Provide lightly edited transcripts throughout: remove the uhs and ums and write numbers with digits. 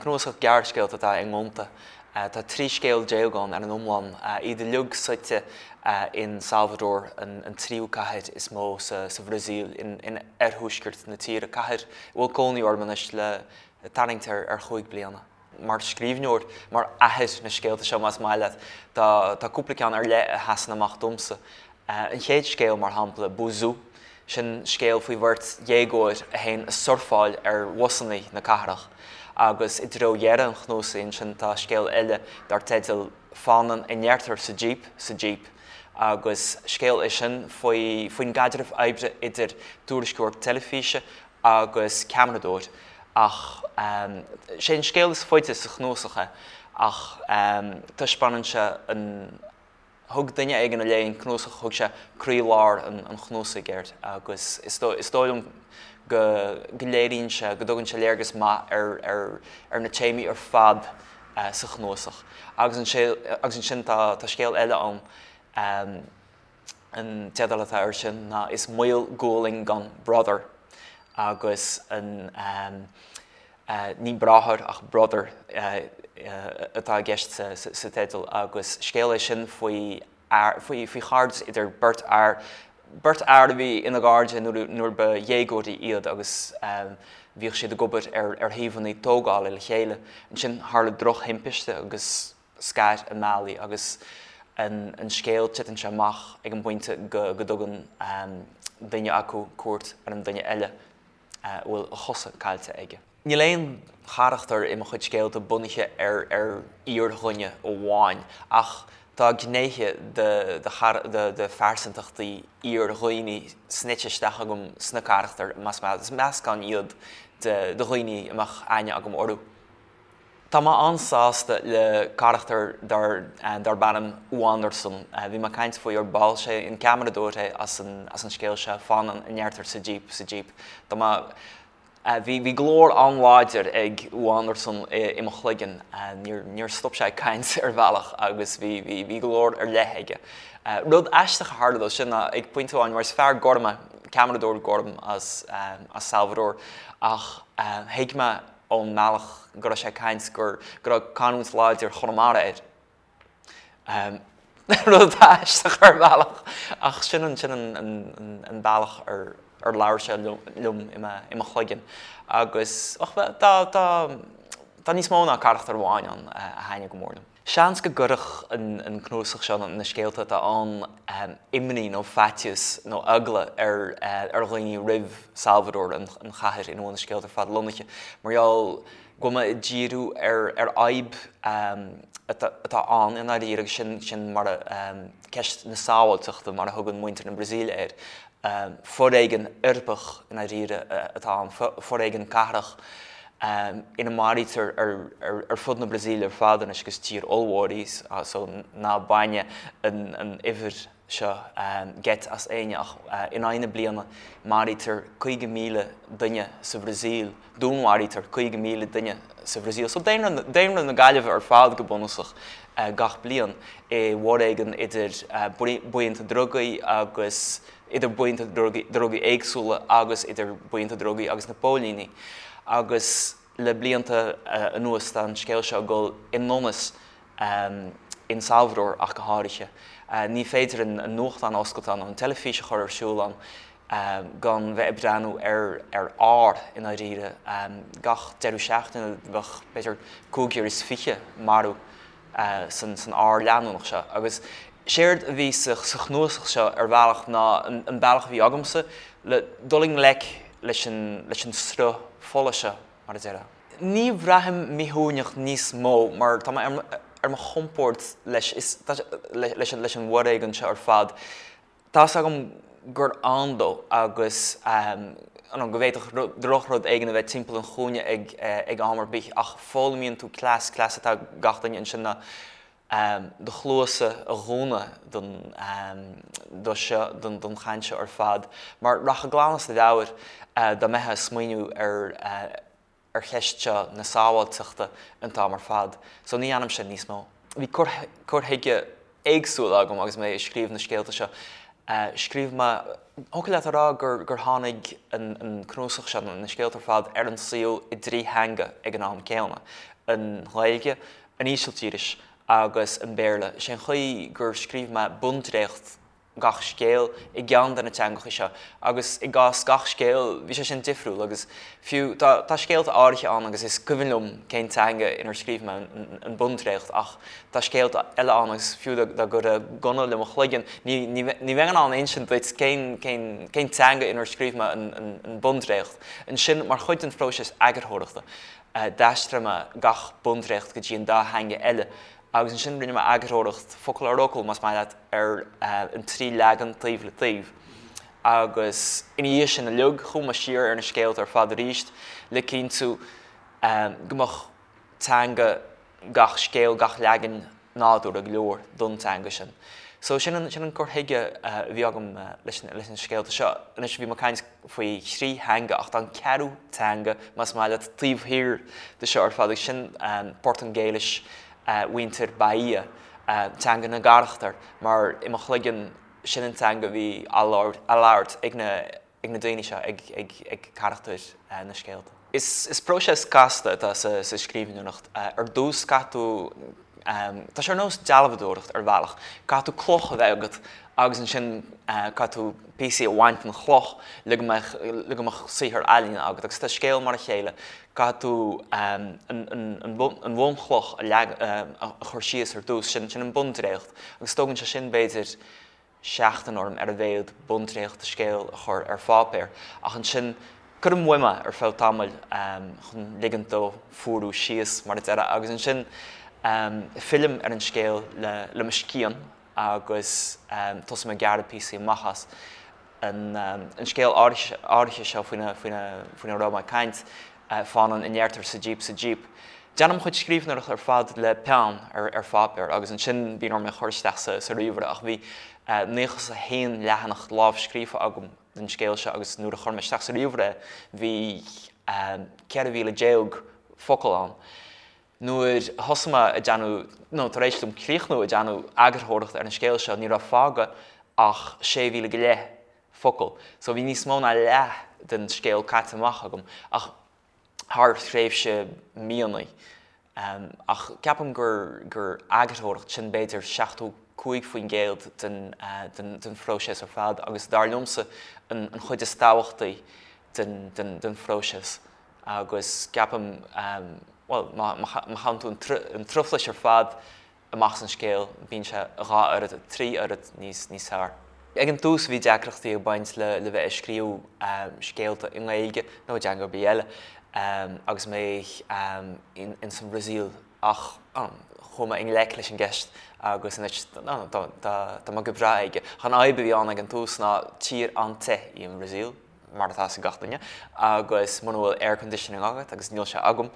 Cnuasach gearrscéalta atá i nGonta. Tá 13 scéal ann ar an iomlán, iad uilig suite in Salvador, an tríú cathair is mó sa Bhrasaíl, in oirthuaisceart na tíre, cathair a bhfuil cónaí orm anois le tarraingt ar chúig bliana. Mar scríbhneoir, mar athair na scéalta seo más maith leat, tá cúpla ceann ar leith a sheasann amach domsa. An chéad scéal, mar shampla, Buzu, sin scéal faoi bheirt dhéagóir a théann a surfáil ar bhusanna na cathrach. Agus i dtreo dheireadh an chnuasaigh ansin tá scéal eile dar teideal Fanann a ndeirtear sa Jíp sa Jíp agus scéal é sin faoi faoin gcaidreamh oibre idir tuairisceoir teilifíse agus ceamaradóir ach sé an scéal is faide sa chnuasach é ach taispeánann sé an Thug duine éigin a léigh an cnuasach, thug sé croílár an chnuasaigh air agus is dóigh liom go léiríonn sé, go dtugann sé léargas maith ar na téamaí ar fad sa chnuasach. Agus ansin tá scéal eile ann, an teideal atá air sin ná Is Maol Gualainn gan Brother agus an. Ní bráthair ach brother atá i gceist sa teideal agus scéal é sin faoi faoi chairdeas idir beirt fhear, beirt fhear a bhí ina gcairde nuair ba dhéagóirí iad agus bhíodh siad ag obair ar shuíomhanna tógála le chéile. Ansin tharla drochthimpiste agus scar a mbealaí agus an scéal, titeann sé amach ag an bpointe go dtugann duine acu cuairt ar an duine eile. a bhfuil a chosa caillte aige. Níl aon charachtar i mo chuid scéalta bunaithe ar ar fhíordhuine amháin, ach tá gnéithe de de phearsantachtaí fhíordhaoine snoite isteach agam sna carachtair, más maith leat. Is meascán iad de dhaoine a mbeadh aithne agam orthu. Tá mé an-sásta le carachtar darb ainm Wanderson. Bhí mé ag caint faoi ar ball. Sé an ceamaradóir é as an as an scéal seo, Fanann a ndeirtear sa Jíp, sa Jíp. Tá mé, bhí bhí glór an-láidir ag Wanderson i mo chloigeann. Níor níor stop sé ag caint ar bhealach agus bhí bhí bhí glór ar leith aige. Rud aisteach a tharla dó sin ná ag pointe amháin, mar is fear gorm é, ceamaradóir gorm as as Salvador, ach thuig mé ón mbealach go raibh sé ag caint go raibh canúint láidir Chonamara air. Rud aisteach ar bhealach ach sin an sin an bealach ar ar labhair sé liom i mo chloigeann. Agus ach tá tá tá níos mó ná carachtar amháin ann a thaitnigh go mór liom. Seans go gcuirfeadh an cnuasach seo, na scéalta atá ann, imní nó faitíos nó eagla ar dhaoine roimh Salvador, an chathair ina bhfuil na scéalta ar fad lonnaithe, mar gheall go bhfuil mé ag díriú ar fhadhb atá ann i ndáiríre agus sin mar ceist na sábháilteachta mar a thugann muintir na Brasaíle air. Foréigean uirbeach i ndáiríre atá ann, foréigean cathrach ina maraítear ar fud na Brasaíle ar fad anois agus tír ollmhór í so ná baineadh an uimhir seo geit as éinne ach in aghaidh na bliana maraítear 50,000 duine sa Bhrasaíl, dúnmharaítear 50,000 duine sa Bhrasaíl. So daonra na Gaillimhe ar fad go bunúsach gach bliain i bhforéigean idir buíonta drugaí agus idir buíonta drugaí éagsúla agus idir buíonta drugaí agus na póilíní. Agus le blianta anuas tá an scéal seo ag dul i ndonas in Salvador ach go háirithe. Ní féidir an nuachtán a oscailt ann nó an teilifís a chur ar siúl ann gan bheith ag breathnú ar ar ár i ndáiríre. Gach deireadh seachtaine bheadh b'fhéidir 25 marbh san ár leanúnach seo. Agus séard a bhí sa chnuasach seo ar bhealach ná an bealach a bhí agamsa le dul i ngleic leis an sruth fola seo, mar a déarfá. Ní bhraithim míshuaimhneach níos mó mar tá mé ar mo chompord leis leis an bhforéigean seo ar fad. Tá's agam gur ann dó agus go bhféadfadh drochrud éigin a bheith timpeall an chúinne ag am ar bith ach foghlaimíonn tú cleas, cleas atá ag gach duine ansin ná do chluasa a dhúnadh don do seo, don chaint seo ar fad mar rachfá glan as do mheabhair dá mbeifeá ag smaoineamh ar ar cheist seo na sábháilteachta an t-am ar fad. So ní dhéanaim sin níos mó. Bhí cur cur chuige éagsúil agam agus mé ag scríobh na scéalta seo. Scríobh mé, thiocfadh leat a rá gur gur tháinig an an cnuasach seo, na scéalta ar fad, ar an saol i dtrí theanga ag an am céanna. An Ghaeilge, an Ísiltíris agus an Béarla. Sé an chaoi gur scríobh mé bundréacht gach scéal i gceann de na teangacha seo agus i gcás gach scéil bhí sé sin difriúil agus fiú tá tá scéalta áirithe ann agus is cuimhin liom cén teanga inar scríobh mé an bundréacht ach tá scéalta eile ann agus fiú dá gcuirfeá gunna le mo chloigeann ní ní ní bheinn in ann insint duit cén cén cén teanga inar scríobh mé an an an bundréacht. Ansin mar chuid den phróiseas eagarthóireachta d'aistrigh mé gach bundréacht go dtí an dá theanga eile agus ansin rinne mé eagarthóireacht, focal ar fhocal más maith leat, ar an trí leagan taobh le taobh. Agus ina dhiaidh sin uilig, chuaigh mé siar ar na scéalta ar fad arís le cinntiú go mbeadh teanga gach scéal, gach leagan nádúrtha go leor don teanga sin. So sin an, sin an cur chuige a bhí agam leis na, leis na scéalta seo. Anois bhí mé ag caint faoi thrí theanga ach tá an ceathrú teanga, más maith leat, taobh thiar de seo ar fad agus sin Portaingéilis mhuintir Bahia, teanga na gcarachtar, mar i mo chloigeann sin an teanga a bhí á labhairt ag na, ag na daoine seo, ag carachtair na scéalta. Is próiseas casta atá sa scríbhneoireacht. Ar dtús caithfidh tú, tá sé ar nós dealbhadóireacht ar bhealach, caithfidh tú cloch a bheith agat agus ansin caithfidh tú píosaí a bhaint den chloch le go mbeadh, le go mbeadh saothar ealaíne agat. Agus tá scéal mar a chéile, caithfidh tú an bhunchloch a chur síos ar dtús, sin an bundréacht agus tógann sé sin b'fhéidir seachtain orm ar a mhéad bundréacht de scéal a chur ar pháipéar, ach ansin cuirim uaim é ar feadh tamaill chun ligint dó fuarú síos, mar a déarfá, agus ansin fillim ar an scéal le mo scian agus tosaím ag gearradh píosaí amach as. An scéal áirithe seo faoina raibh mé ag caint, Fánann a ndeirtear sa jíp sa jíp. Déanaim mo chuid scríbhneoireachta ar fad le peann ar pháipéar agus ansin bíonn orm é a chur isteach sa ríomhaire ach bhí 91 leathanach lámhscríofa agam den scéal seo agus nuair a chuir mé isteach sa ríomhaire é bhí 14,000 focal ann. Nuair a thosaigh mé ag déanamh, nó tar éis dom críochnú ag déanamh eagarthóireachta ar an scéal seo ní raibh fágtha ach 16,000 go leith focal. So bhí níos mó ná leath den scéal caite amach agam ach thar thréimhse míonna. Ach ceapaim gur gur eagarthóireacht, sin b'fhéidir 75% den den den phróiseas ar fad agus dar liomsa an an chuid is tábhachtaí den den den phróiseas. Agus ceapaim, bhuel, má má chaitheann tú an truflais ar fad amach as an scéal, bíonn sé dhá oiread, trí oiread níos níos fearr. Ag an tús bhí deacrachtaí ag baint le le bheith ag scríobh scéalta i nGaeilge nó i dteanga ar bith eile agus mé ins an Bhrasaíl ach chuaigh mé i ngleic leis an gceist agus anois tá mé go breá aige. Ach an fhadhb a bhí ann ag an tús ná tír an-te í an Bhrasaíl. mar atá a fhios ag gach duine, agus muna bhfuil air conditioning agat, agus níl sé agam,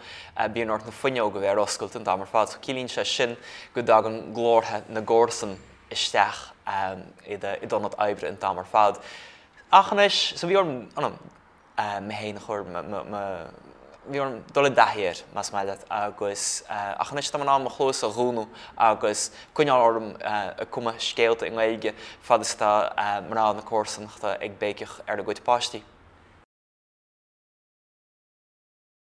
bíonn ort na fuinneoga a bheith ar oscailt an t-am ar fad. So ciallaíonn sé sin go dtagann glórtha na gcomharsan isteach i d'ionad oibre an t-am ar fad. Ach anois, so bhí orm, mé féin a chur, bhí orm dul i dtaithí air, más maith leat, agus, ach anois tá mé in ann mo chluasa a dhúnadh agus coinneáil orm ag cumadh scéalta i nGaeilge fad is atá mná na comharsanachta ag béiceach ar a gcuid páistí.